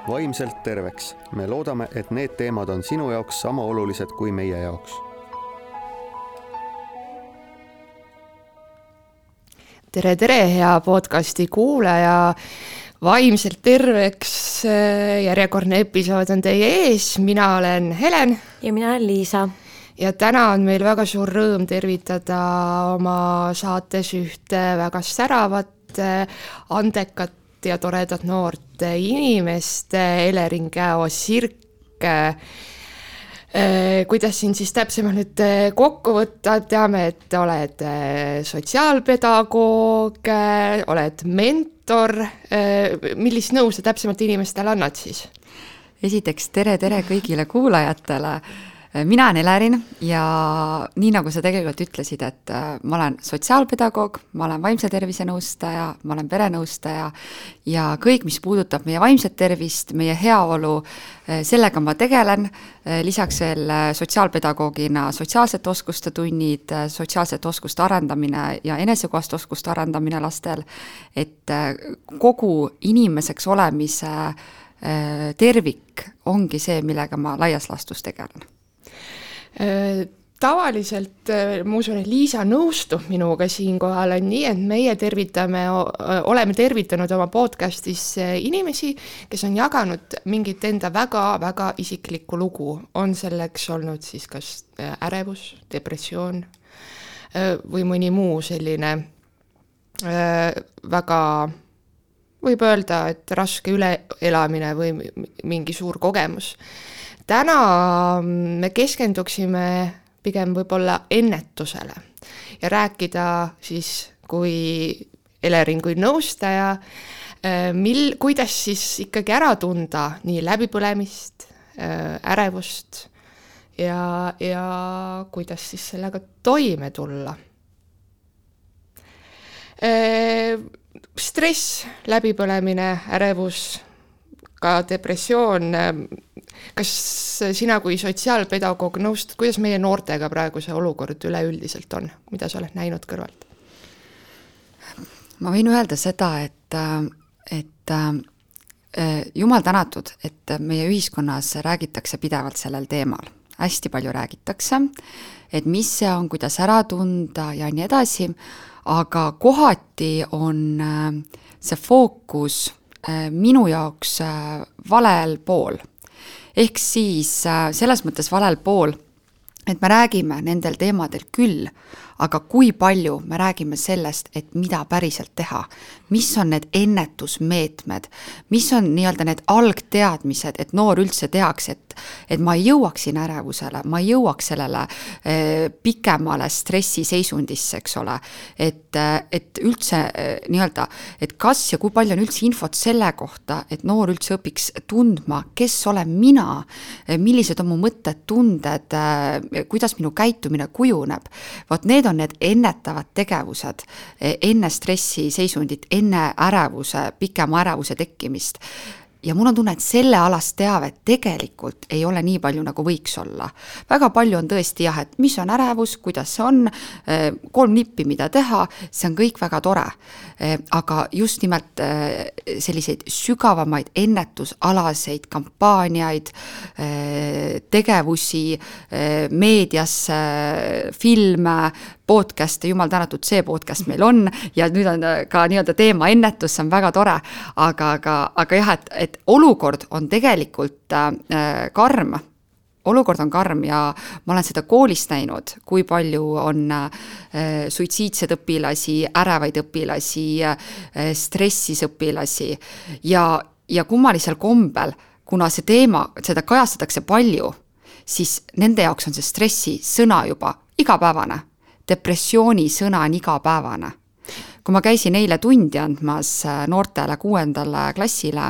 vaimselt terveks. Me loodame, et need teemad on sinu jaoks sama olulised kui meie jaoks. Tere, hea podcasti kuulaja. Vaimselt terveks järjekordne episood on teie ees. Mina olen Helen. Ja mina olen Liisa. Ja täna on meil väga suur rõõm tervitada oma saates ühte väga säravat, andekat ja toredat noort inimest, Elering Käo-Sirk. Kuidas siin siis täpsemalt nüüd kokku võtta? Teame, et oled sotsiaalpedagoog, oled mentor. Millist nõu sa täpsemalt inimestele annad siis? Esiteks tere kõigile kuulajatele. Mina olen Elerin ja nii nagu sa tegelikult ütlesid, et ma olen sotsiaalpedagoog, ma olen vaimse tervise nõustaja, ma olen perenõustaja ja kõik, mis puudutab meie vaimset tervist, meie heaolu, sellega ma tegelen. Lisaks veel sotsiaalpedagoogina sotsiaalsete oskuste tunnid, sotsiaalsete oskuste arendamine ja enesekohast oskuste arendamine lastel, et kogu inimeseks olemise tervik ongi see, millega ma laias laastus tegelen. Tavaliselt, ma usun, et Liisa nõustub minuga siinkohal on nii, et meie oleme tervitanud oma podcastis inimesi, kes on jaganud mingit enda väga isiklikku lugu. On selleks olnud siis kas ärevus, depressioon või mõni muu selline väga, võib öelda, et raske üleelamine või mingi suur kogemus. Täna me keskenduksime pigem võib-olla ennetusele ja rääkida siis kui Elering kui nõustaja, kuidas siis ikkagi ära tunda nii läbipõlemist, ärevust ja kuidas siis sellega toime tulla. Stress, läbipõlemine, ärevus, ka depressioon. Kas sina kui sotsiaalpedagoog nõustad, kuidas meie noortega praegu see olukord üleüldiselt on? Mida sa oled näinud kõrvalt? Ma võin öelda seda, et jumal tänatud, et meie ühiskonnas räägitakse pidevalt sellel teemal. Hästi palju räägitakse, et mis see on, kuidas ära tunda ja nii edasi, aga kohati on see fookus minu jaoks valel pool. Ehk siis selles mõttes valel pool, et me räägime nendel teemadel küll, aga kui palju me räägime sellest, et mida päriselt teha, mis on need ennetusmeetmed, mis on nii-öelda need algteadmised, et noor üldse teaks, et ma ei jõuaks siin ärevusele, ma ei jõuaks sellele pikemale stressiseisundisse, eks ole, et üldse nii-öelda, et kas ja kui palju on üldse infot selle kohta, et noor üldse õpiks tundma, kes olen mina, millised on mu mõtted, tunded, kuidas minu käitumine kujuneb. Vot need on need ennetavad tegevused enne stressiseisundit, enne ärevuse, pikema ärevuse tekkimist. Ja mul on tunne, et selle alast teavet tegelikult ei ole nii palju, nagu võiks olla. Väga palju on tõesti jah, et mis on ärevus, kuidas see on, 3 nippi, mida teha, see on kõik väga tore. Aga just nimelt selliseid sügavamaid ennetusalaseid kampaaniaid, tegevusi, meediasse, filme, podcast'e, jumal tänatud, see podcast meil on ja nüüd on ka nii-öelda teema ennetus, see on väga tore, aga jah, et olukord on tegelikult karm. Olukord on karm ja ma olen seda koolist näinud, kui palju on suitsiidsed õpilasi, ärevaid õpilasi, stressis õpilasi ja kummalisel kombel, kuna see teema, seda kajastatakse palju, siis nende jaoks on see stressi sõna juba igapäevane. Depressiooni sõna on igapäevane. Kui ma käisin eile tundi andmas noortele 6. klassile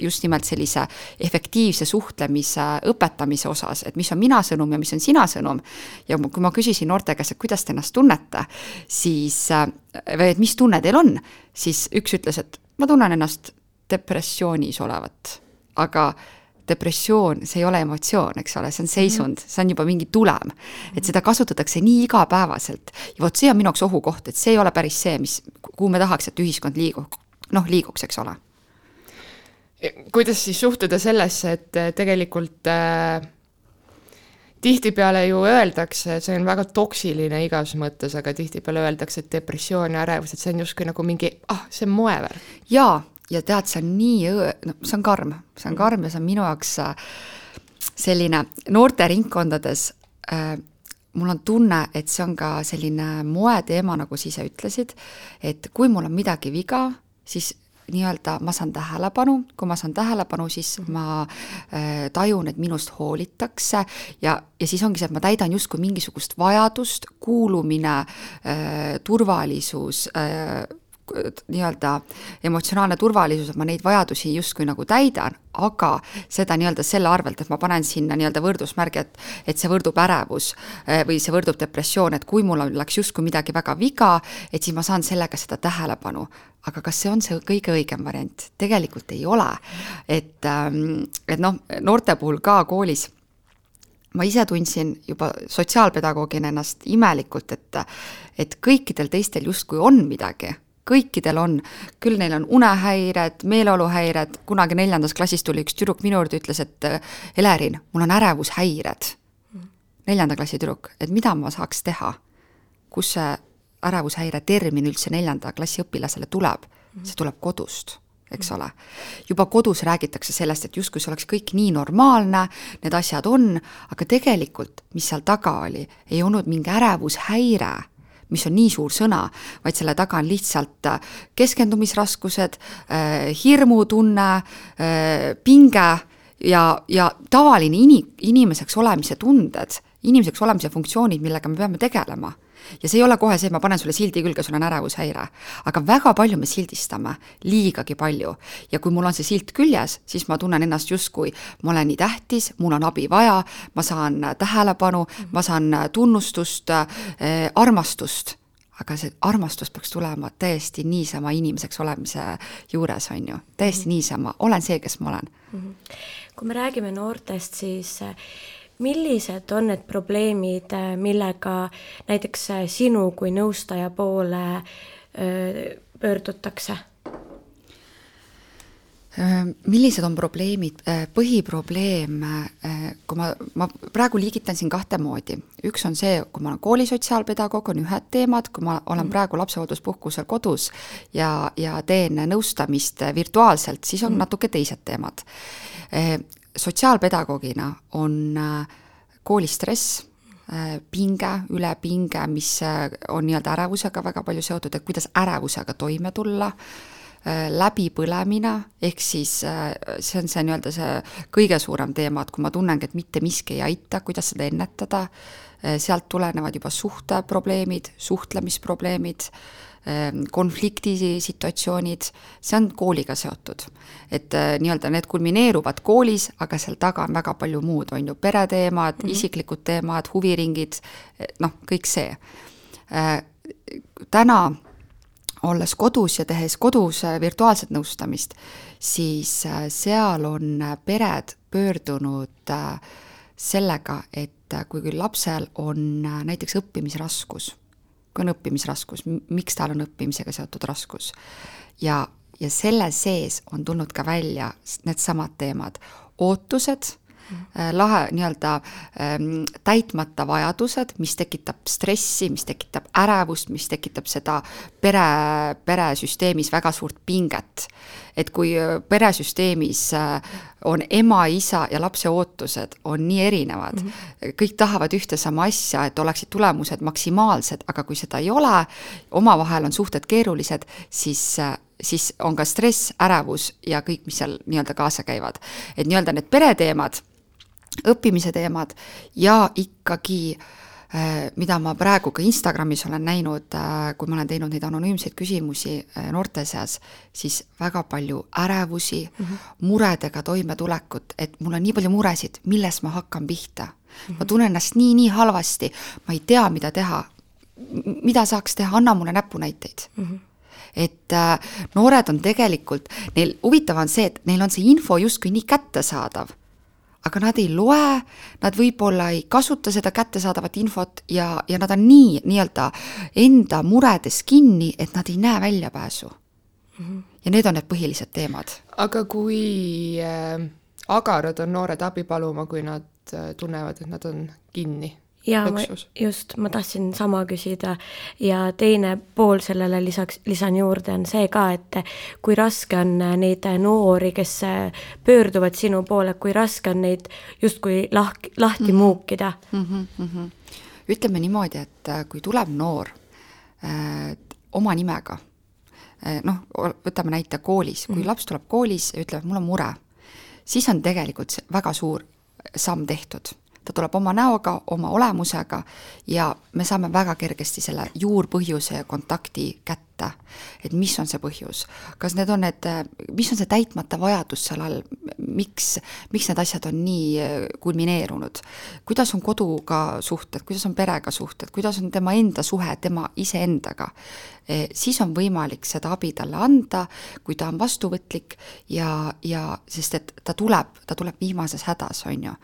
just nimelt sellise efektiivse suhtlemise õpetamise osas, et mis on mina sõnum ja mis on sina sõnum, ja kui ma küsisin noorte käest, et kuidas te ennast tunnete, siis, või et mis tunne teil on, siis üks ütles, et ma tunnen ennast depressioonis olevat, aga depressioon, see ei ole emotsioon, eks ole, see on seisund, see on juba mingi tulem, et seda kasutatakse nii igapäevaselt ja vot see on minu jaoks ohukoht, et see ei ole päris see, kuhu me tahaks, et ühiskond liiguks, eks ole. kuidas siis suhtuda sellesse, et tegelikult tihtipeale ju öeldakse, see on väga toksiline igas mõttes, aga tihtipeale öeldakse, et depressioon ja ärevus, et see on justkui nagu mingi, see on moeväär. Jaa, ja tead, see on nii, see on karm ja see on minu jaoks selline noorte ringkondades, mul on tunne, et see on ka selline moeteema, nagu sa ise ütlesid, et kui mul on midagi viga, siis nii-öelda ma saan tähelepanu, kui ma saan tähelepanu, siis ma tajun, et minust hoolitakse ja siis ongi see, et ma täidan justkui mingisugust vajadust, kuulumine, turvalisus, nii-öelda emotsionaalne turvalisus, et ma neid vajadusi justkui nagu täidan, aga seda nii-öelda selle arvelt, et ma panen sinna nii-öelda võrdusmärgi, et see võrdub ärevus või see võrdub depressioon, et kui mul läks justkui midagi väga viga, et siis ma saan sellega seda tähelepanu. Aga kas see on see kõige õigem variant? Tegelikult ei ole. Et noorte puhul ka koolis ma ise tundsin juba sotsiaalpedagoogina ennast imelikult, et kõikidel teistel justkui on midagi. Kõikidel on, küll neil on unehäired, meeleoluhäired, kunagi 4. klassis tuli üks tüdruk minu juurde, ütles, et Elerin, mul on ärevushäired. 4. klassi tüdruk, et mida ma saaks teha? Kus see ärevushäire termin üldse 4. klassi õpilasele tuleb? See tuleb kodust, eks ole. Juba kodus räägitakse sellest, et justkui see oleks kõik nii normaalne, need asjad on, aga tegelikult, mis seal taga oli, ei olnud mingi ärevushäire, mis on nii suur sõna, vaid selle taga on lihtsalt keskendumisraskused, hirmutunne, pinge ja tavaline inimeseks olemise tunded, inimeseks olemise funktsioonid, millega me peame tegelema. Ja see ei ole kohe see, et ma panen sulle sildi külge, sul on ärevushäire. Aga väga palju me sildistame, liigagi palju. Ja kui mul on see silt küljes, siis ma tunnen ennast justkui, ma olen nii tähtis, mul on abi vaja, ma saan tähelepanu, ma saan tunnustust, armastust. Aga see armastus peaks tulema täiesti niisama inimeseks olemise juures, on ju. Täiesti niisama, olen see, kes ma olen. Kui me räägime noortest, siis millised on need probleemid, millega näiteks sinu kui nõustaja poole pöördutakse? Millised on probleemid? Põhiprobleem, kui ma praegu liigitan siin 2 moodi. Üks on see, kui ma olen koolisotsiaalpedagoog, on ühed teemad, kui ma olen praegu lapsehoolduspuhkusel kodus ja teen nõustamist virtuaalselt, siis on natuke teised teemad. Sotsiaalpedagoogina on koolistress, pinge, ülepinge, mis on nii-öelda ärevusega väga palju seotud, et kuidas ärevusega toime tulla, läbipõlemine, ehk siis see on see nii-öelda see kõige suurem teema, et kui ma tunnengi, et mitte miski ei aita, kuidas seda ennetada, sealt tulenevad juba suhteprobleemid, suhtlemisprobleemid, konfliktisituatsioonid, see on kooliga seotud. Et nii-öelda need kulmineeruvad koolis, aga seal taga on väga palju muud, on ju pereteemad, isiklikud teemad, huviringid, kõik see. Täna, olles kodus ja tehes kodus virtuaalset nõustamist, siis seal on pered pöördunud sellega, et kui lapsel on näiteks õppimisraskus, kui on õppimisraskus, miks tal on õppimisega seotud raskus. Ja selle sees on tulnud ka välja need samad teemad. Ootused, nii-öelda täitmata vajadused, mis tekitab stressi, mis tekitab ärevust, mis tekitab seda peresüsteemis väga suurt pinget. Et kui peresüsteemis on ema, isa ja lapse ootused on nii erinevad, kõik tahavad ühte sama asja, et oleksid tulemused maksimaalsed, aga kui seda ei ole, omavahel on suhted keerulised, siis on ka stress, ärevus ja kõik, mis seal nii-öelda kaasa käivad. Et nii-öelda need pereteemad, õppimise teemad ja ikkagi, mida ma praegu ka Instagramis olen näinud, kui ma olen teinud neid anonüümseid küsimusi noorte seas, siis väga palju ärevusi, muredega toimetulekut, et mul on nii palju muresid, milles ma hakkan pihta. Ma tunnen ennast nii halvasti, ma ei tea, mida teha. Mida saaks teha, anna mulle näpunäiteid. Et noored on tegelikult, neil huvitav on see, et neil on see info justkui nii kättesaadav, aga nad ei loe, nad võib-olla ei kasuta seda kättesaadavat infot ja nad on nii-öelda enda muredes kinni, et nad ei näe väljapääsu. Ja need on need põhilised teemad. Aga kui agarad on noored abi paluma, kui nad tunnevad, et nad on kinni? Ja ma tahtsin sama küsida ja teine pool sellele lisan juurde on see ka, et kui raske on neid noori, kes pöörduvad sinu poole, kui raske on neid justkui lahti muukida? Ütleme niimoodi, et kui tuleb noor oma nimega, võtame näite koolis, kui laps tuleb koolis ja ütleb, mul on mure, siis on tegelikult väga suur samm tehtud. Ta tuleb oma näoga, oma olemusega ja me saame väga kergesti selle juurpõhjuse ja kontakti kätte, et mis on see põhjus. Kas need on mis on see täitmata vajadus seal all, miks need asjad on nii kulmineerunud, kuidas on koduga suhted, kuidas on perega suhted, kuidas on tema enda suhe, tema iseendaga. Siis on võimalik seda abi talle anda, kui ta on vastuvõtlik ja sest et ta tuleb viimases hädas, on ju.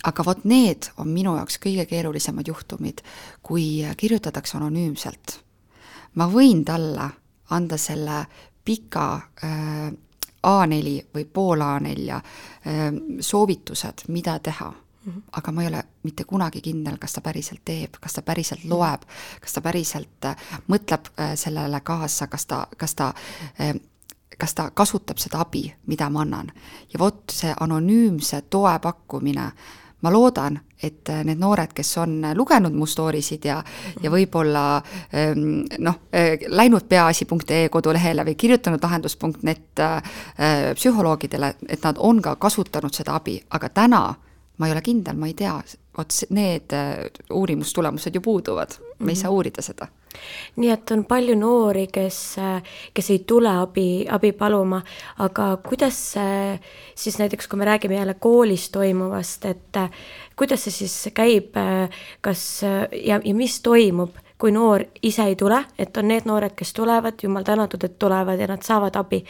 Aga vot need on minu jaoks kõige keerulisemad juhtumid, kui kirjutatakse anonüümselt. Ma võin talle anda selle pika A4 või pool A4 soovitused, mida teha. Aga ma ei ole mitte kunagi kindel, kas ta päriselt teeb, kas ta päriselt loeb, kas ta päriselt mõtleb sellele kaasa, kas ta kasutab seda abi, mida ma annan. Ja vot see anonüümse toe pakkumine, ma loodan, et need noored, kes on lugenud mu stoorisid ja võib-olla läinud peaasi.ee kodulehele või kirjutanud lahendus.net psühholoogidele, et nad on ka kasutanud seda abi, aga täna ma ei ole kindel, ma ei tea, need uurimustulemused ju puuduvad, me ei saa uurida seda. Nii et on palju noori, kes ei tule abi paluma, aga kuidas siis näiteks, kui me räägime jälle koolis toimuvast, et kuidas see siis käib, ja mis toimub, kui noor ise ei tule, et on need noored, kes tulevad, jumal tänatud, et tulevad ja nad saavad abi,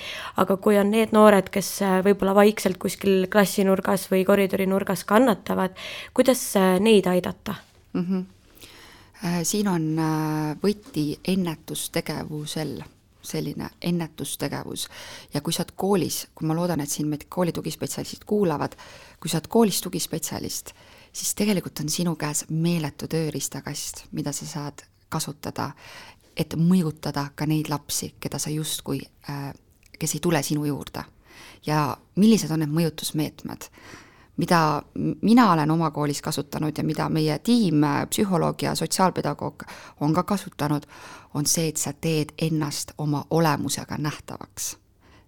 aga kui on need noored, kes võib-olla vaikselt kuskil klassinurgas või koridorinurgas kannatavad, kuidas neid aidata? Siin on võti ennetustegevusel, selline ennetustegevus. Ja kui sa oled koolis, kui ma loodan, et siin meid kooli tugispetsialistid kuulavad, kui sa oled koolis tugispetsialist, siis tegelikult on sinu käes meeletu tööriistakast, mida sa saad kasutada, et mõjutada ka neid lapsi, keda sa justkui, kes ei tule sinu juurde. Ja millised on need mõjutusmeetmed? Mida mina olen oma koolis kasutanud ja mida meie tiim, psühholoog ja sotsiaalpedagoog on ka kasutanud, on see, et sa teed ennast oma olemusega nähtavaks.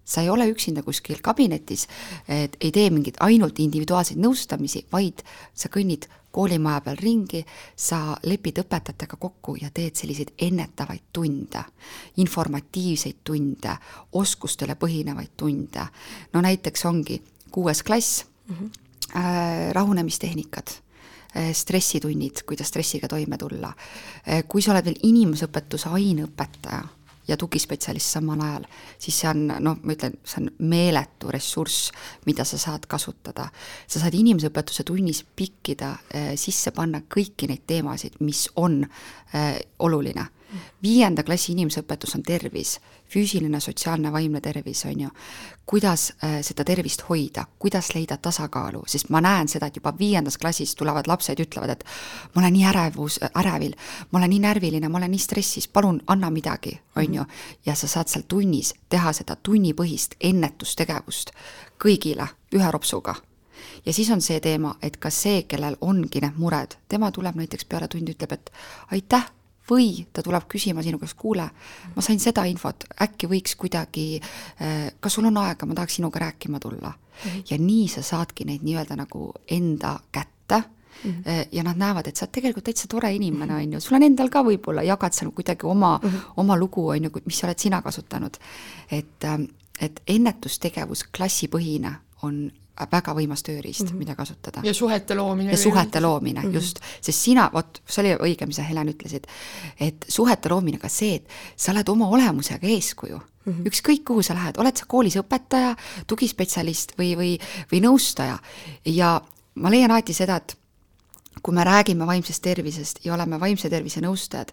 Sa ei ole üksinda kuskil kabinetis, et ei tee mingit ainult individuaalseid nõustamisi, vaid sa kõnnid koolimaja peal ringi, sa lepid õpetajatega kokku ja teed selliseid ennetavaid tunde, informatiivseid tunde, oskustele põhinevaid tunde. No näiteks ongi 6. klass, rahunemistehnikad, stressitunnid, kuidas stressiga toime tulla. Kui sa oled veel inimesõpetuse aineõpetaja ja tugispetsialist samal ajal, siis see on, ma ütlen, see on meeletu ressurss, mida sa saad kasutada. Sa saad inimesõpetuse tunnis pikkida, sisse panna kõiki neid teemasid, mis on oluline. 5. klassi inimesõpetus on tervis, füüsiline, sotsiaalne, vaimne tervis, on ju. Kuidas seda tervist hoida, kuidas leida tasakaalu, sest ma näen seda, et juba 5. klassis tulevad lapsed, ütlevad, et ma olen nii ärevil, ma olen nii närviline, ma olen nii stressis, palun anna midagi, on ju. Ja sa saad seal tunnis teha seda tunnipõhist ennetustegevust kõigile ühe ropsuga. Ja siis on see teema, et ka see, kellel ongi need mured, tema tuleb näiteks peale tundi, ütleb, et aitäh, või ta tuleb küsima sinu käest, kuule, ma sain seda infot, äkki võiks kuidagi, kas sul on aega, ma tahaks sinuga rääkima tulla. Ja nii sa saadki neid nii-öelda nagu enda kätte ja nad näevad, et sa oled tegelikult täitsa tore inimene, on ju. Sul on endal ka võib-olla, jagad seal kuidagi oma lugu, on ju, mis oled sina kasutanud. Et ennetustegevus klassipõhine on väga võimas tööriist, mida kasutada. Ja suhete loomine. Ja suhete loomine, just. Sest sina, see oli õige, mis sa Helen ütlesid, et suhete loomine ka see, et sa oled oma olemusega eeskuju. Ükskõik kuhu sa lähed, oled sa koolis õpetaja, tugispetsialist või nõustaja. Ja ma leian alati seda, et kui me räägime vaimsest tervisest ja oleme vaimse tervise nõustajad,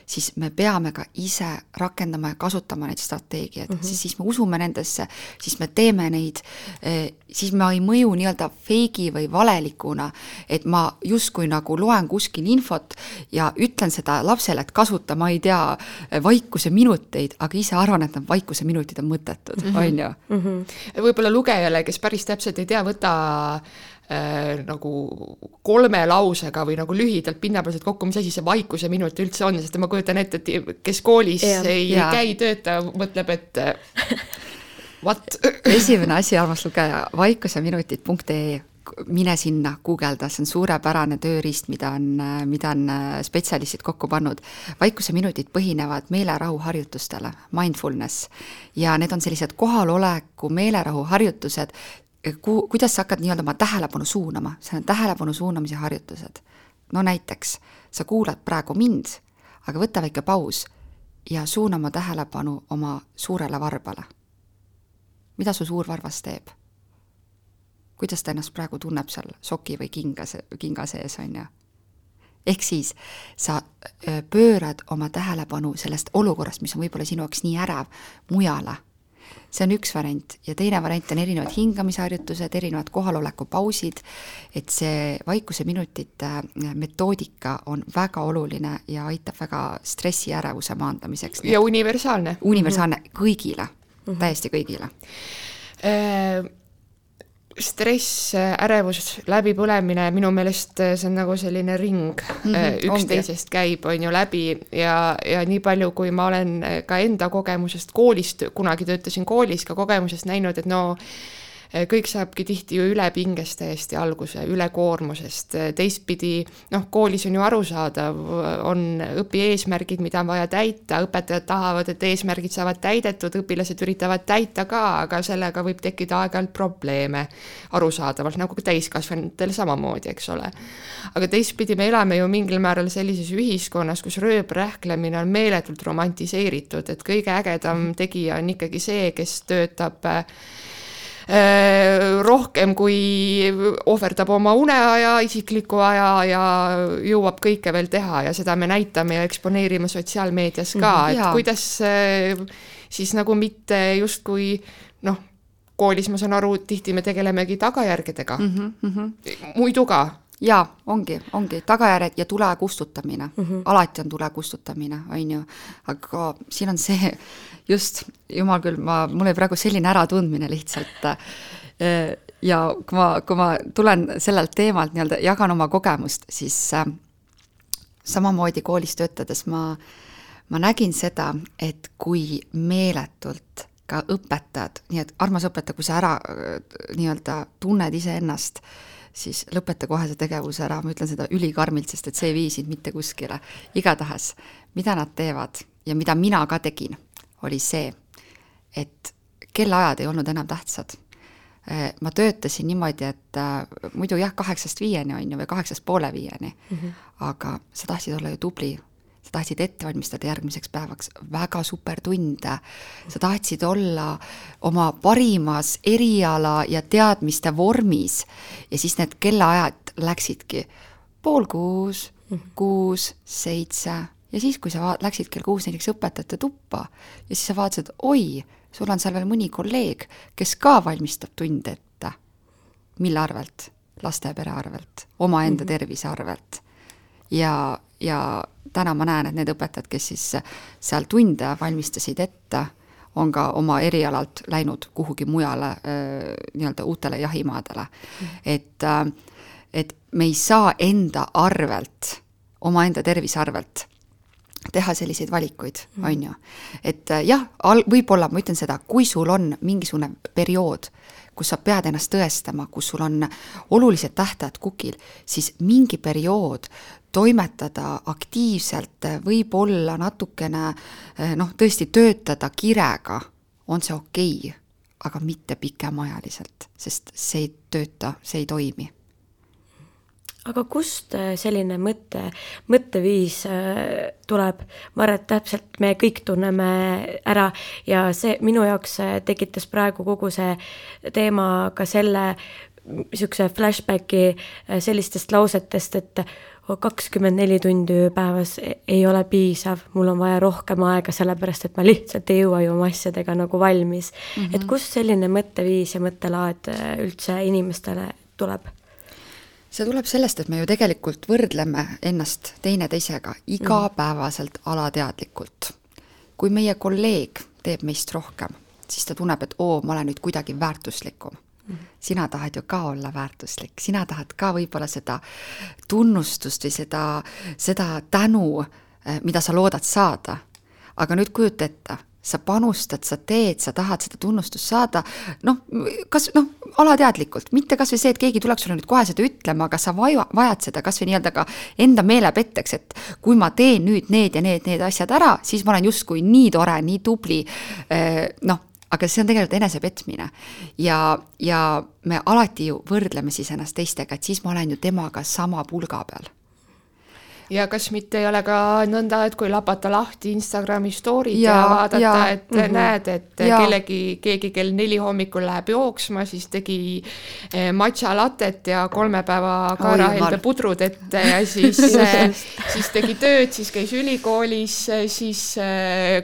siis me peame ka ise rakendama ja kasutama neid strateegiaid, siis me usume nendesse, siis me teeme neid, siis ma ei mõju nii-öelda feigi või valelikuna, et ma justkui nagu loen kuskil infot ja ütlen seda lapsele, et kasuta, ma ei tea, vaikuse minuteid, aga ise arvan, et need vaikuse minutid on mõttetud, on ju? Võib-olla lugejale, kes päris täpselt ei tea, võta nagu 3 lausega või nagu lühidalt pinnapealselt kokku, mis asi see vaikuse minut üldse on, sest ma kujutan ette, et kes koolis ei käi tööta, mõtleb, et what? Esimene asi, armas lugeja, vaikuseminutid.ee, mine sinna, guugelda, see on suurepärane tööriist, mida on spetsialistid kokku pannud. Vaikuse minutid põhinevad meelerahu harjutustele, mindfulness, ja need on sellised kohaloleku meelerahu harjutused, kuidas sa hakkad nii-öelda oma tähelepanu suunama, see on tähelepanu suunamise harjutused. No näiteks, sa kuulad praegu mind, aga võta väike paus ja suuna oma tähelepanu oma suurele varbale. Mida su suur varvas teeb? Kuidas ta ennast praegu tunneb seal soki või kinga sees, on ju? Ehk siis sa pöörad oma tähelepanu sellest olukorrast, mis on võib-olla sinu jaoks nii ärev, mujale. See on üks variant ja teine variant on erinevad hingamisharjutused, erinevad kohaloleku pausid, et see vaikuse minutite metoodika on väga oluline ja aitab väga stressi ärevuse maandamiseks. Ja universaalne. Universaalne kõigile, täiesti kõigile. Stress, ärevus, läbipõlemine, minu meelest see on nagu selline ring, üksteisest käib, on ju läbi ja nii palju, kui ma olen ka enda kogemusest koolist, kunagi töötasin koolis ka kogemusest näinud, et no kõik saabki tihti ju ülepingest täiesti alguse, ülekoormusest, teistpidi, koolis on ju arusaadav, on õpieesmärgid, mida on vaja täita, õpetajad tahavad, et eesmärgid saavad täidetud, õpilased üritavad täita ka, aga sellega võib tekkida aeg-ajalt probleeme arusaadavalt, nagu ka täiskasvanutel samamoodi, eks ole. Aga teistpidi me elame ju mingil määral sellises ühiskonnas, kus rööprähklemine on meeletult romantiseeritud, et kõige ägedam tegija on ikkagi see, kes töötab rohkem kui ohverdab oma uneaja, isikliku aja ja jõuab kõike veel teha ja seda me näitame ja eksponeerime sotsiaalmeedias ka, et kuidas siis nagu mitte justkui koolis ma saan aru, tihti me tegelemegi tagajärgedega. Muidu ka. Jaa, ongi, tagajärjed ja tule kustutamine. Alati on tule kustutamine, on ju. Aga siin on see, just, jumal küll, mul oli praegu selline äratundmine lihtsalt. Ja kui ma tulen sellelt teemalt, nii-öelda jagan oma kogemust, siis samamoodi koolis töötades ma nägin seda, et kui meeletult ka õpetad, nii et armas õpetaja, kui sa ära nii-öelda tunned ise ennast, siis lõpeta kohe see tegevus ära, ma ütlen seda ülikarmilt, sest et see ei vii sind mitte kuskile. Igatahes, mida nad teevad ja mida mina ka tegin, oli see, et kellaajad ei olnud enam tähtsad. Ma töötasin niimoodi, et muidu 8-5 on ju, või 8:30, aga sa tahtsid olla ju tubli, sa tahtsid ette valmistada järgmiseks päevaks väga super tunde, sa tahtsid olla oma parimas eriala ja teadmiste vormis ja siis need kellaajad läksidki 5:30, 6, 7 ja siis, kui sa läksid kell 6 näiteks õpetajate tuppa ja siis sa vaatasid, oi, sul on seal veel mõni kolleeg, kes ka valmistab tunde ette. Mille arvelt? Laste ja pere arvelt, omaenda tervise arvelt. Ja täna ma näen, et need õpetajad, kes siis seal tunde valmistasid ette, on ka oma erialalt läinud kuhugi mujale nii-öelda uutele jahimaadele. Et me ei saa enda arvelt, omaenda tervise arvelt teha selliseid valikuid, on ju. Et jah, võib-olla ma ütlen seda, kui sul on mingisugune periood, kus sa pead ennast tõestama, kus sul on olulised tähtajad kukil, siis mingi periood toimetada aktiivselt, võib-olla natukene, tõesti töötada kirega, on see okei, aga mitte pikemajaliselt, sest see ei tööta, see ei toimi. Aga kust selline mõtteviis tuleb? Ma arvan, et täpselt me kõik tunneme ära ja see minu jaoks tekitas praegu kogu see teema ka selle niisuguse flashbacki sellistest lausetest, et 24 tundi päevas ei ole piisav, mul on vaja rohkem aega, sellepärast et ma lihtsalt ei jõua ju oma asjadega nagu valmis. Et kust selline mõtteviis ja mõttelaad üldse inimestele tuleb? See tuleb sellest, et me ju tegelikult võrdleme ennast teineteisega igapäevaselt alateadlikult. Kui meie kolleeg teeb meist rohkem, siis ta tunneb, et ma olen nüüd kuidagi väärtuslikum. Sina tahad ju ka olla väärtuslik, sina tahad ka võib-olla seda tunnustust või seda tänu, mida sa loodad saada. Aga nüüd kujuta ette, sa panustad, sa teed, sa tahad seda tunnustust saada, alateadlikult, mitte kas või see, et keegi tuleks sulle nüüd kohe seda ütlema, aga sa vajad seda kas või nii-öelda ka enda meelepetteks, et kui ma teen nüüd need ja need asjad ära, siis ma olen justkui nii tore, nii tubli, aga see on tegelikult enesepetmine ja me alati ju võrdleme siis ennast teistega, et siis ma olen ju temaga sama pulga peal. Ja kas mitte ei ole ka nõnda, et kui lapata lahti Instagrami story'd ja vaadata, et näed, et keegi kell 4 hommikul läheb jooksma, siis tegi matcha latet ja 3 päeva kaarahelde pudrud ette ja siis tegi tööd, siis käis ülikoolis, siis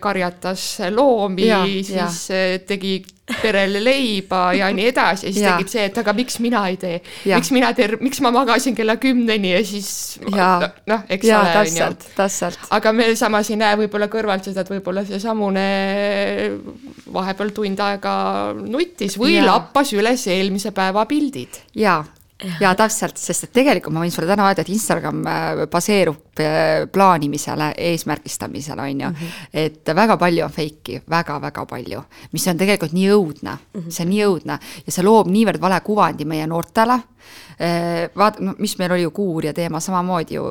karjatas loomi, siis tegi perele leiba ja nii edasi ja siis tegid see, et aga miks mina ei tee, miks ma magasin kella 10 ja siis eks ole. Täpselt. Aga me samas ei näe võib-olla kõrvalt seda, et võib-olla see samune vahepeal tund aega nuttis või lappas üles eelmise päeva pildid. Ja täpselt, sest et tegelikult ma võin sulle täna öelda, et Instagram baseerub plaanimisele, eesmärgistamisele, on ju. Et väga palju on feiki, väga-väga palju, mis on tegelikult nii õudne, see on nii õudne ja see loob niivõrd vale kuvandi meie noortele. Mis meil oli ju kuurja teema samamoodi ju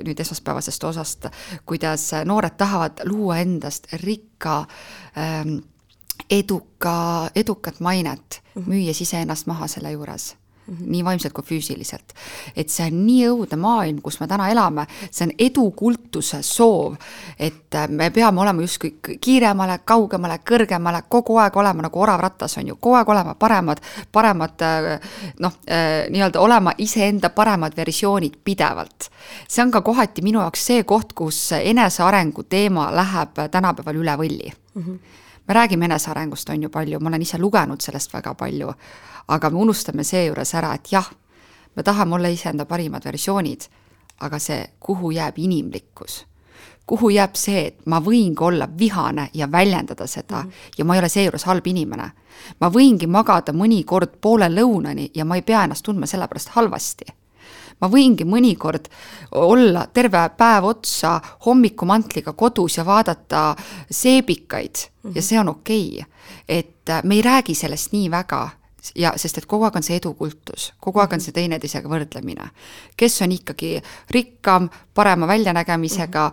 nüüd esmaspäevasest osast, kuidas noored tahavad luua endast rikka, edukat mainet, müües ise ennast maha selle juures. Nii vaimselt kui füüsiliselt. Et see on nii õudne maailm, kus me täna elame, see on edukultuse soov, et me peame olema justkui kiiremale, kaugemale, kõrgemale, kogu aeg olema nagu oravrattas on ju, kogu aeg olema paremad nii-öelda olema iseenda paremad versioonid pidevalt. See on ka kohati minu jaoks see koht, kus enesearengu teema läheb tänapäeval üle võlli. Me räägime enesearengust on ju palju, ma olen ise lugenud sellest väga palju, aga me unustame see juures ära, et jah, me tahame olla iseenda parimad versioonid, aga see, kuhu jääb inimlikkus, kuhu jääb see, et ma võingi olla vihane ja väljendada seda ja ma ei ole see juures halb inimene. Ma võingi magada mõnikord poole lõunani ja ma ei pea ennast tundma sellepärast halvasti. Ma võingi mõnikord olla terve päev otsa hommikumantliga kodus ja vaadata seebikaid ja see on okei. Et me ei räägi sellest nii väga, sest et kogu aeg on see edukultus, kogu aeg on see teineteisega võrdlemine. Kes on ikkagi rikkam, parema väljanägemisega,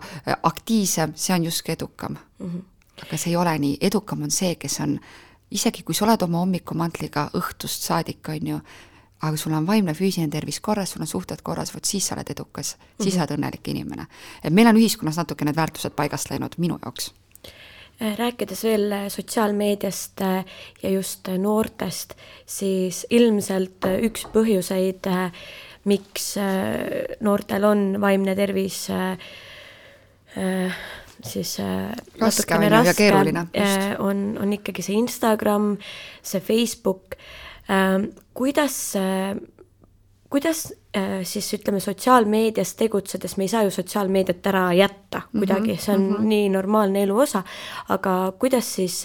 aktiivsem, see on just edukam. Aga see ei ole nii. Edukam on see, kes on, isegi kui sa oled oma hommikumantliga õhtust saadik, on ju, aga sul on vaimne füüsiline tervis korras, sul on suhted korras, siis sa oled edukas, siis sa oled õnnelik inimene. Et meil on ühiskonnas natuke need väärtused paigast läinud minu jaoks. Rääkides veel sotsiaalmeediast ja just noortest, siis ilmselt üks põhjuseid, miks noortel on vaimne tervis siis raske ja keeruline on ikkagi see Instagram, see Facebook. Kuidas siis ütleme sotsiaalmeedias tegutsedes, me ei saa ju sotsiaalmeediat ära jätta kuidagi, see on nii normaalne elu osa, aga kuidas siis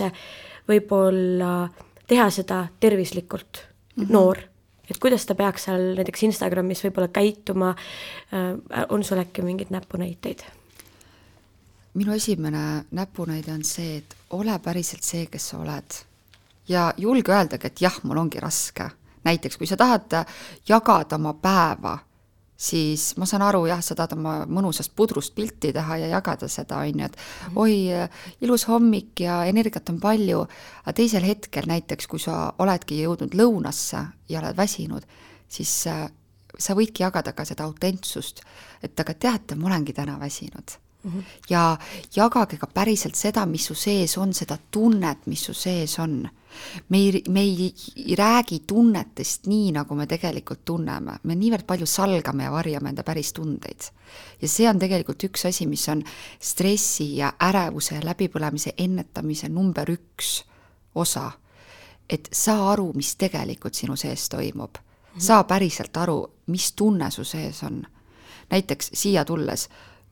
võib-olla teha seda tervislikult noor, et kuidas ta peaks seal näiteks Instagramis võib-olla käituma, on sul äkki mingid näpunäiteid? Minu esimene näpunäide on see, et ole päriselt see, kes sa oled ja julge öeldagi, et jah, mul ongi raske. Näiteks, kui sa tahad jagada oma päeva, siis ma saan aru, jah, sa tahad oma mõnusast pudrust pilti teha ja jagada seda, on ju, et oi, ilus hommik ja energiat on palju, aga teisel hetkel näiteks, kui sa oledki jõudnud lõunasse ja oled väsinud, siis sa võidki jagada ka seda autentsust, et aga teate, ma olengi täna väsinud. ja jagage ka päriselt seda, mis su sees on, seda tunnet, mis su sees on. Me ei räägi tunnetest nii, nagu me tegelikult tunneme. Me niivõrd palju salgame ja varjame enda päris tundeid. Ja see on tegelikult üks asi, mis on stressi ja ärevuse ja läbipõlemise ennetamise number 1 osa. Et saa aru, mis tegelikult sinu sees toimub. Saa päriselt aru, mis tunne su sees on. Näiteks siia tulles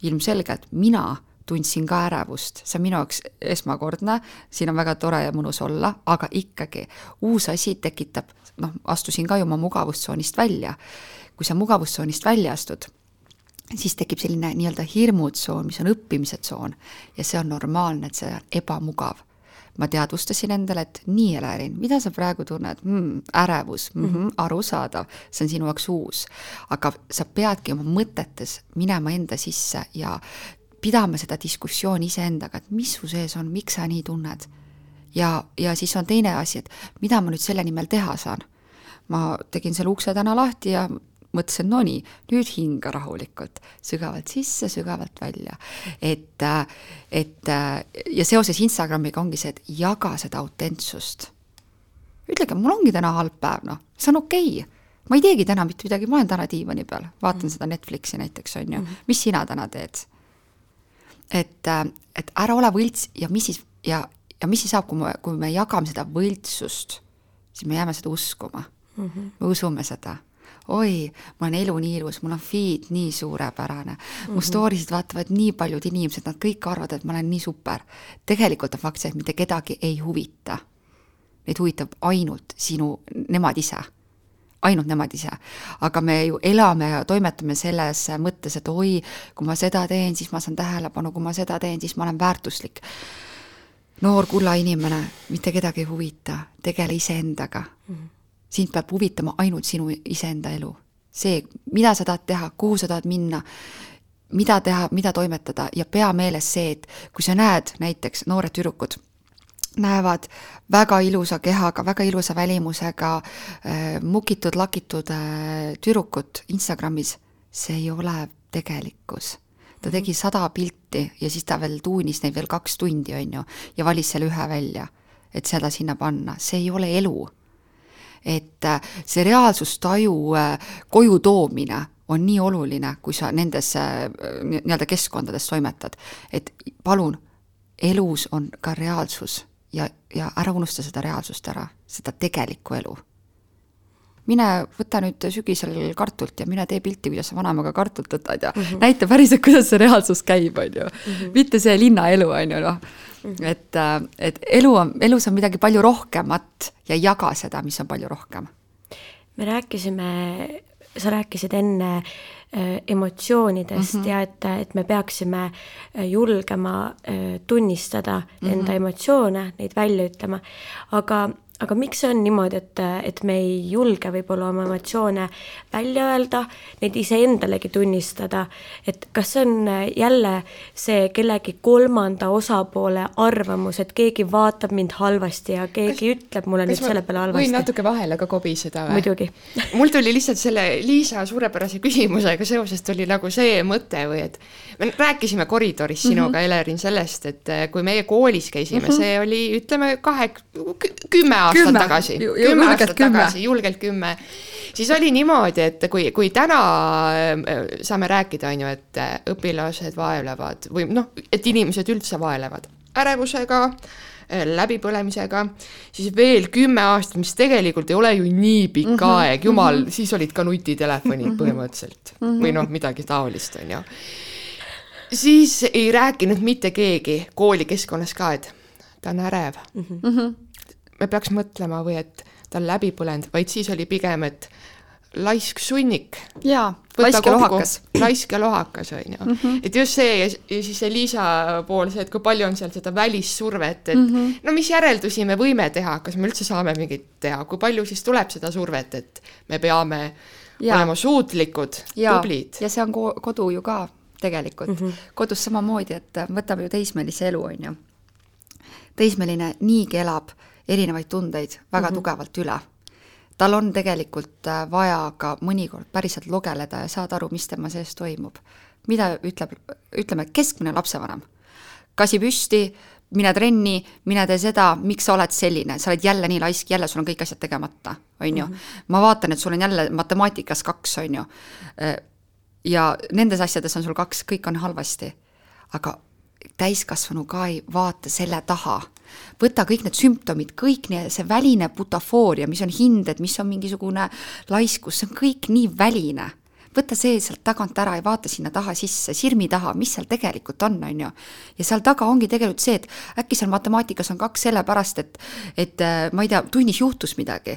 ilmselgelt mina tundsin ka ärevust, see on minu jaoks esmakordne, siin on väga tore ja mõnus olla, aga ikkagi uus asi tekitab, astusin ka ju oma mugavustsoonist välja. Kui sa mugavustsoonist välja astud, siis tekib selline nii-öelda hirmutsoon, mis on õppimise tsoon ja see on normaalne, et see on ebamugav. Ma teadvustasin endale, et nii Elerin, mida sa praegu tunned? Ärevus, arusaadav, see on sinu jaoks uus. Aga sa peadki oma mõtetes minema enda sisse ja pidama seda diskussiooni iseendaga, et mis su sees on, miks sa nii tunned. Ja siis on teine asi, et mida ma nüüd selle nimel teha saan. Ma tegin selle ukse täna lahti ja mõtlesin, no nii, nüüd hinga rahulikult, sügavalt sisse, sügavalt välja. Ja seoses Instagramiga ongi see, et jaga seda autentsust. Ütlege, mul ongi täna halb päev, see on okei. Ma ei teegi täna mitte midagi, ma olen täna diivani peal, vaatan seda Netflixi näiteks, on ju. Mis sina täna teed? Et ära ole võlts ja mis siis saab, kui me jagame seda võltsust, siis me jääme seda uskuma. Me usume seda. Oi, mul on elu nii ilus, mul on feed nii suurepärane, mu storysid vaatavad nii paljud inimesed, nad kõik arvavad, et ma olen nii super. Tegelikult on fakt see, et mitte kedagi ei huvita. Neid huvitab ainult nemad ise. Ainult nemad ise. Aga me ju elame ja toimetame selles mõttes, et oi, kui ma seda teen, siis ma saan tähelepanu, kui ma seda teen, siis ma olen väärtuslik. Noor kulla inimene, mitte kedagi ei huvita, tegele iseendaga. Sind peab huvitama ainult sinu iseenda elu. See, mida sa tahad teha, kuhu sa tahad minna, mida teha, mida toimetada ja pea meeles see, et kui sa näed näiteks noored tüdrukud, näevad väga ilusa kehaga, väga ilusa välimusega, mukitud, lakitud tüdrukut Instagramis, see ei ole tegelikkus. Ta tegi 100 pilti ja siis ta veel tuunis neid veel 2 tundi, on ju, ja valis selle ühe välja, et seda sinna panna. See ei ole elu. Et see reaalsustaju koju toomine on nii oluline, kui sa nendes nii-öelda keskkondades toimetad. Et palun, elus on ka reaalsus ja ära unusta seda reaalsust ära, seda tegelikku elu. Mine võta nüüd sügisel kartult ja mine tee pilti, kuidas sa vanemaga kartult võtad ja näita päriselt, kuidas see reaalsus käib, on ju. Mitte see linnaelu, on ju, Et elus on midagi palju rohkemat ja jaga seda, mis on palju rohkem. Sa rääkisid enne emotsioonidest ja et me peaksime julgema tunnistada enda emotsioone, neid välja ütlema, aga miks see on niimoodi, et me ei julge võib-olla oma emotsioone välja öelda, neid iseendalegi tunnistada, et kas see on jälle see kellegi kolmanda osapoole arvamus, et keegi vaatab mind halvasti ja keegi ütleb mulle nüüd selle peale halvasti? Võin natuke vahele ka kobiseda või? Muidugi. Mul tuli lihtsalt selle Liisa suurepärase küsimusega seoses tuli nagu see mõte või, et me rääkisime koridoris sinuga, Elerin, sellest, et kui meie koolis käisime, see oli, ütleme, 10 aastat tagasi, 10 aastat tagasi, julgelt 10. Siis oli niimoodi, et kui täna saame rääkida, on ju, et õpilased vaevlevad või et inimesed üldse vaevlevad ärevusega, läbipõlemisega, siis veel 10 aastat, mis tegelikult ei ole ju nii pikk aeg, jumal, siis olid ka nutitelefonid põhimõtteliselt või midagi taolist, on ju. Siis ei rääkinud mitte keegi koolikeskkonnas ka, et ta on ärev. Me peaks mõtlema või et ta on läbi põlenud, vaid siis oli pigem, et laisk sunnik. Jaa, laisk ja lohakas. Laisk ja lohakas, on ju. Et just see ja siis see Liisa pool, see, et kui palju on seal seda välissurvet, et no mis järeldusi me võime teha, kas me üldse saame mingit teha, kui palju siis tuleb seda survet, et me peame olema suutlikud, tublid. Ja see on kodu ju ka tegelikult. Kodus samamoodi, et võtame ju teismelise elu, on ju. Teismeline niigi elab erinevaid tundeid väga tugevalt üle. Tal on tegelikult vaja ka mõnikord päriselt logeleda ja saada aru, mis tema sees toimub. mida ütleme keskmine lapsevanem? Kasi püsti, mine trenni, mine tee seda, miks sa oled selline, sa oled jälle nii laisk, jälle sul on kõik asjad tegemata, on ju. Ma vaatan, et sul on jälle matemaatikas 2, on ju. Ja nendes asjades on sul 2, kõik on halvasti. Aga täiskasvanu ka ei vaata selle taha. Võta kõik need sümptomid, kõik see väline butafooria, mis on hinded, mis on mingisugune laiskus, see on kõik nii väline. Võta see sealt tagant ära ja vaata sinna taha sisse, sirmi taha, mis seal tegelikult on ju. Ja seal taga ongi tegelikult see, et äkki seal matemaatikas on 2 sellepärast, et ma ei tea, tunnis juhtus midagi.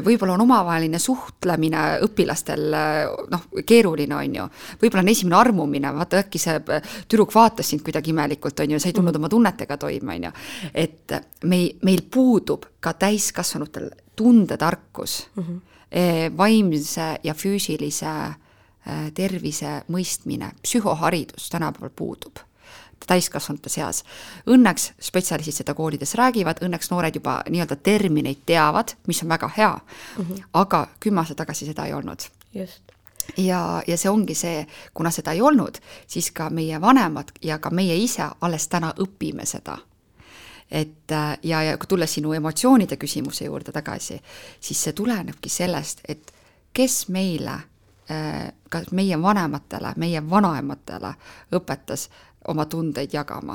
Võib-olla on omavaheline suhtlemine õpilastel keeruline on ju. Võib-olla on esimene armumine, vaata äkki see tüdruk vaatas sind kuidagi imelikult on ju, sa ei tulnud oma tunnetega toime on ju. Et meil puudub ka täiskasvanutel tundetarkus, vaimse ja füüsilise tervise mõistmine, psühhoharidus tänapäeval puudub täiskasvanute seas. Õnneks spetsialistid seda koolides räägivad, õnneks noored juba nii-öelda termineid teavad, mis on väga hea, aga 10 aastat tagasi seda ei olnud. Just. Ja see ongi see, kuna seda ei olnud, siis ka meie vanemad ja ka meie ise alles täna õpime seda. Et, ja kui tulla sinu emotsioonide küsimuse juurde tagasi, siis see tulenebki sellest, et kes meile, kas meie vanematele, meie vanaematele õpetas oma tundeid jagama.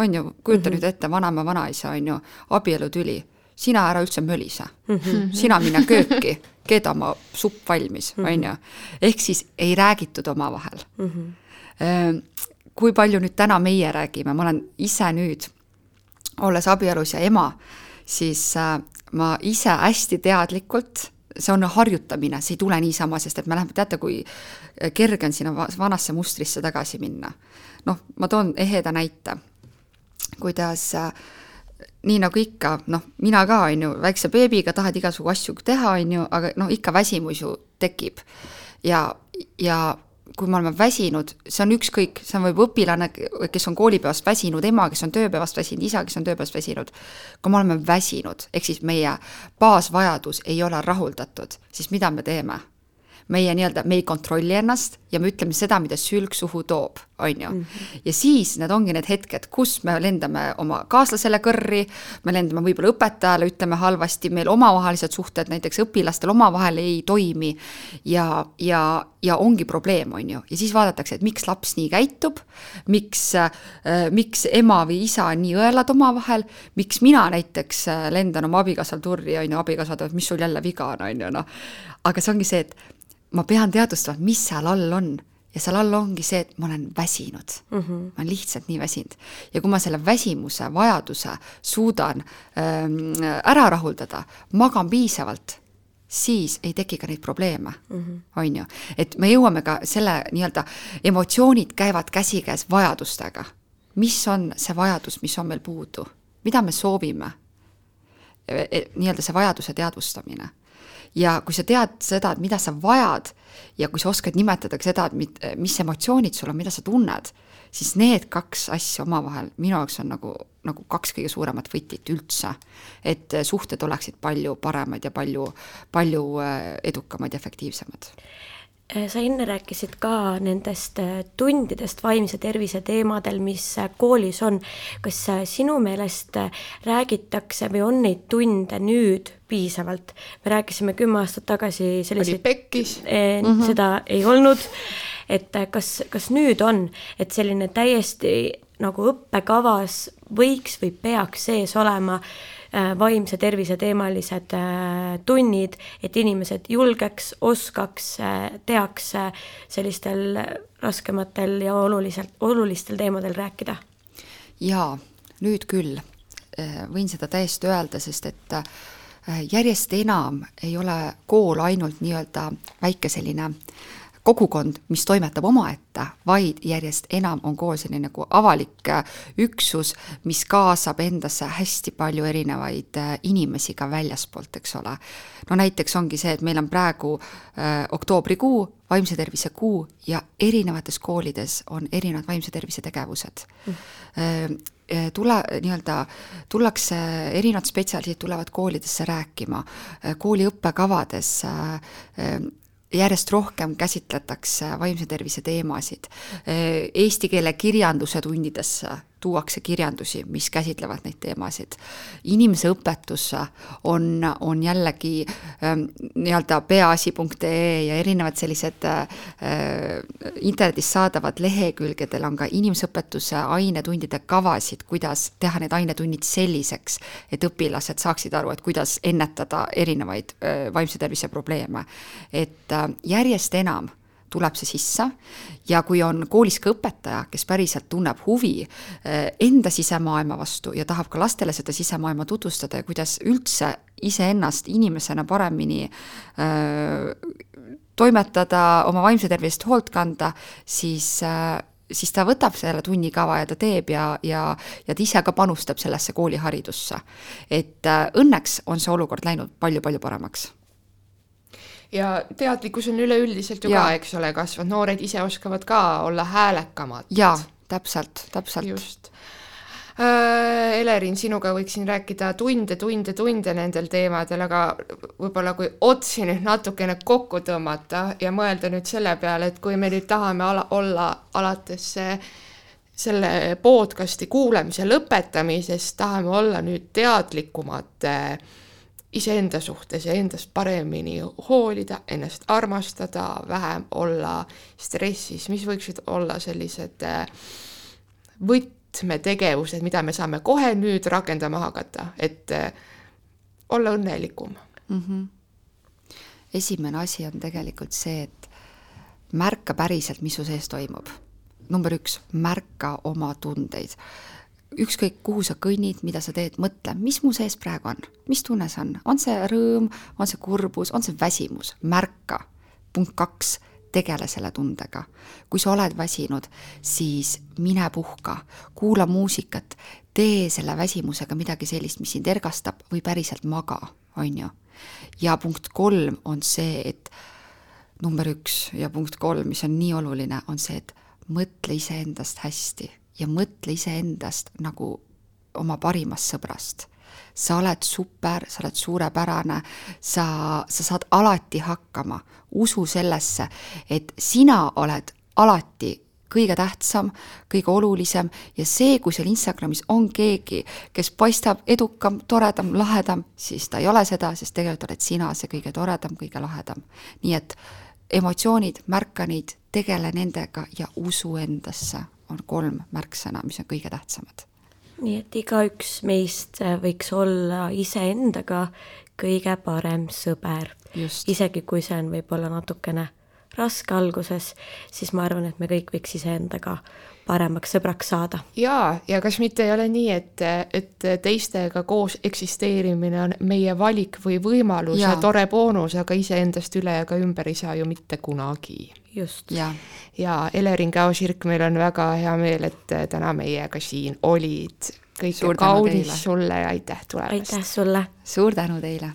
On ju, kujuta nüüd ette, vanaema vanaisa on ju, abielutüli, sina ära üldse mölise, sina minna kööki, keeda oma supp valmis, on ju. Ehk siis ei räägitud oma vahel. Kui palju nüüd täna meie räägime, ma olen ise nüüd, olles abielus ja ema, siis ma ise hästi teadlikult, see on harjutamine, see ei tule niisama, sest et me läheme, teate, kui kerge on sinna vanasse mustrisse tagasi minna. Ma toon eheda näite, kuidas nii nagu ikka, mina ka on ju, väikse beebiga tahad igasugu asju teha, on ju, aga ikka väsimus ju tekib. Ja kui me oleme väsinud, see on ükskõik, see on võib õpilane, kes on koolipäevast väsinud, ema, kes on tööpäevast väsinud, isa, kes on tööpäevast väsinud. Kui me oleme väsinud, ehk siis meie baasvajadus ei ole rahuldatud, siis mida me teeme? Me ei kontrolli ennast ja me ütleme seda, mida sülg suhu toob, on ju. Ja siis need ongi need hetked, kus me lendame oma kaaslasele kõrri, me lendame võib-olla õpetajale, ütleme halvasti, meil omavahelised suhted, näiteks õpilastel omavahel ei toimi ja ongi probleem, on ju. Ja siis vaadatakse, et miks laps nii käitub, miks ema või isa on nii õelad omavahel, miks mina näiteks lendan oma abikaasal turri, on ju, abikaasad, mis sul jälle viga on, on ju, Aga see ongi see, et ma pean teadvustama, mis seal all on. Ja seal all ongi see, et ma olen väsinud. Ma olen lihtsalt nii väsinud. Ja kui ma selle väsimuse vajaduse suudan ära rahuldada, magan piisavalt, siis ei teki ka neid probleeme. On ju. Et me jõuame ka selle nii-öelda emotsioonid käivad käsikäes vajadustega. Mis on see vajadus, mis on meil puudu? Mida me soovime? Nii-öelda see vajaduse teadvustamine. Ja kui sa tead seda, et mida sa vajad ja kui sa oskad nimetada seda, et mis emotsioonid sul on, mida sa tunned, siis need 2 asja omavahel minu jaoks on nagu 2 kõige suuremat võtit üldse, et suhted oleksid palju paremad ja palju edukamad ja efektiivsemad. Sa enne rääkisid ka nendest tundidest vaimse tervise teemadel, mis koolis on. Kas sinu meelest räägitakse või on neid tunde nüüd piisavalt? Me rääkisime 10 aastat tagasi selliseid... Oli pekkis. Seda ei olnud. Et kas nüüd on, et selline täiesti nagu õppekavas võiks või peaks sees olema vaimse tervise teemalised tunnid, et inimesed julgeks, oskaks, teaks sellistel raskematel ja olulistel teemadel rääkida? Jaa, nüüd küll. Võin seda täiesti öelda, sest et järjest enam ei ole kool ainult nii-öelda väike selline kogukond, mis toimetab omaette, vaid järjest enam on kool selline nagu avalik üksus, mis kaasab endasse hästi palju erinevaid inimesi ka väljaspoolt, eks ole. Näiteks ongi see, et meil on praegu oktoobrikuu, vaimse tervise kuu ja erinevates koolides on erinevad vaimse tervise tegevused. Tullakse, erinevad spetsialistid tulevad koolidesse rääkima, kooli õppekavades järjest rohkem käsitletakse vaimse tervise teemasid. Eesti keele kirjanduse tundidesse tuuakse kirjandusi, mis käsitlevad neid teemasid. Inimese õpetusse on jällegi nii-öelda peaasi.ee ja erinevad sellised internetis saadavad lehekülgedel on ka inimeseõpetuse ainetundide kavasid, kuidas teha need ainetunnid selliseks, et õpilased saaksid aru, et kuidas ennetada erinevaid vaimse tervise probleeme. Et järjest enam tuleb see sisse ja kui on koolis ka õpetaja, kes päriselt tunneb huvi enda sisemaailma vastu ja tahab ka lastele seda sisemaailma tutvustada ja kuidas üldse iseennast inimesena paremini toimetada, oma vaimse tervist hoolt kanda, siis ta võtab selle tunnikava ja ta teeb ja ta ise ka panustab sellesse kooliharidusse. Et õnneks on see olukord läinud palju-palju paremaks. Ja teadlikkus on üleüldiselt ju ka, eks ole, kasvanud. Noored ise oskavad ka olla häälekamad. Jaa, täpselt. Just. Elerin, sinuga võiksin rääkida tunde nendel teemadel, aga võib-olla kui otsi nüüd natukene kokku tõmmata ja mõelda nüüd selle peale, et kui me nüüd tahame olla alates selle podcasti kuulamise lõpetamisest, tahame olla nüüd teadlikumad iseenda suhtes ja endast paremini hoolida, ennast armastada, vähem olla stressis, mis võiksid olla sellised võtmetegevused, mida me saame kohe nüüd rakendama hakata, et olla õnnelikum. Esimene asi on tegelikult see, et märka päriselt, mis su sees toimub. Number 1, märka oma tundeid. Ükskõik, kuhu sa kõnnid, mida sa teed, mõtle, mis mu sees praegu on, mis tunne see on, on see rõõm, on see kurbus, on see väsimus, märka. Punkt 2, tegele selle tundega. Kui sa oled väsinud, siis mine puhka, kuula muusikat, tee selle väsimusega midagi sellist, mis sind ergastab või päriselt maga, on ju. Ja punkt 3 on see, et number 1 ja punkt 3, mis on nii oluline, on see, et mõtle iseendast hästi. Ja mõtle iseendast nagu oma parimast sõbrast. Sa oled super, sa oled suurepärane, sa saad alati hakkama. Usu sellesse, et sina oled alati kõige tähtsam, kõige olulisem ja see, kui seal Instagramis on keegi, kes paistab edukam, toredam, lahedam, siis ta ei ole seda, sest tegelikult oled sina see kõige toredam, kõige lahedam. Nii et emotsioonid, märka neid, tegele nendega ja usu endasse. On 3 märksõna, mis on kõige tähtsamad. Nii et igaüks meist võiks olla iseendaga kõige parem sõber. Just. Isegi kui see on võib-olla natukene raske alguses, siis ma arvan, et me kõik võiks iseendaga paremaks sõbraks saada. Ja kas mitte ei ole nii, et teistega koos eksisteerimine on meie valik või võimalus ja tore boonus, aga iseendast üle ja ka ümber ei saa ju mitte kunagi. Just. Ja Elerin Käo-Sirk, meil on väga hea meel, et täna meiega siin olid. Kõike kaunis sulle ja aitäh tulemast. Aitäh sulle. Suur tänu teile.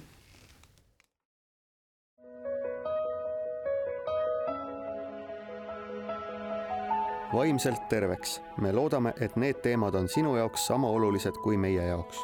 Vaimselt terveks. Me loodame, et need teemad on sinu jaoks sama olulised kui meie jaoks.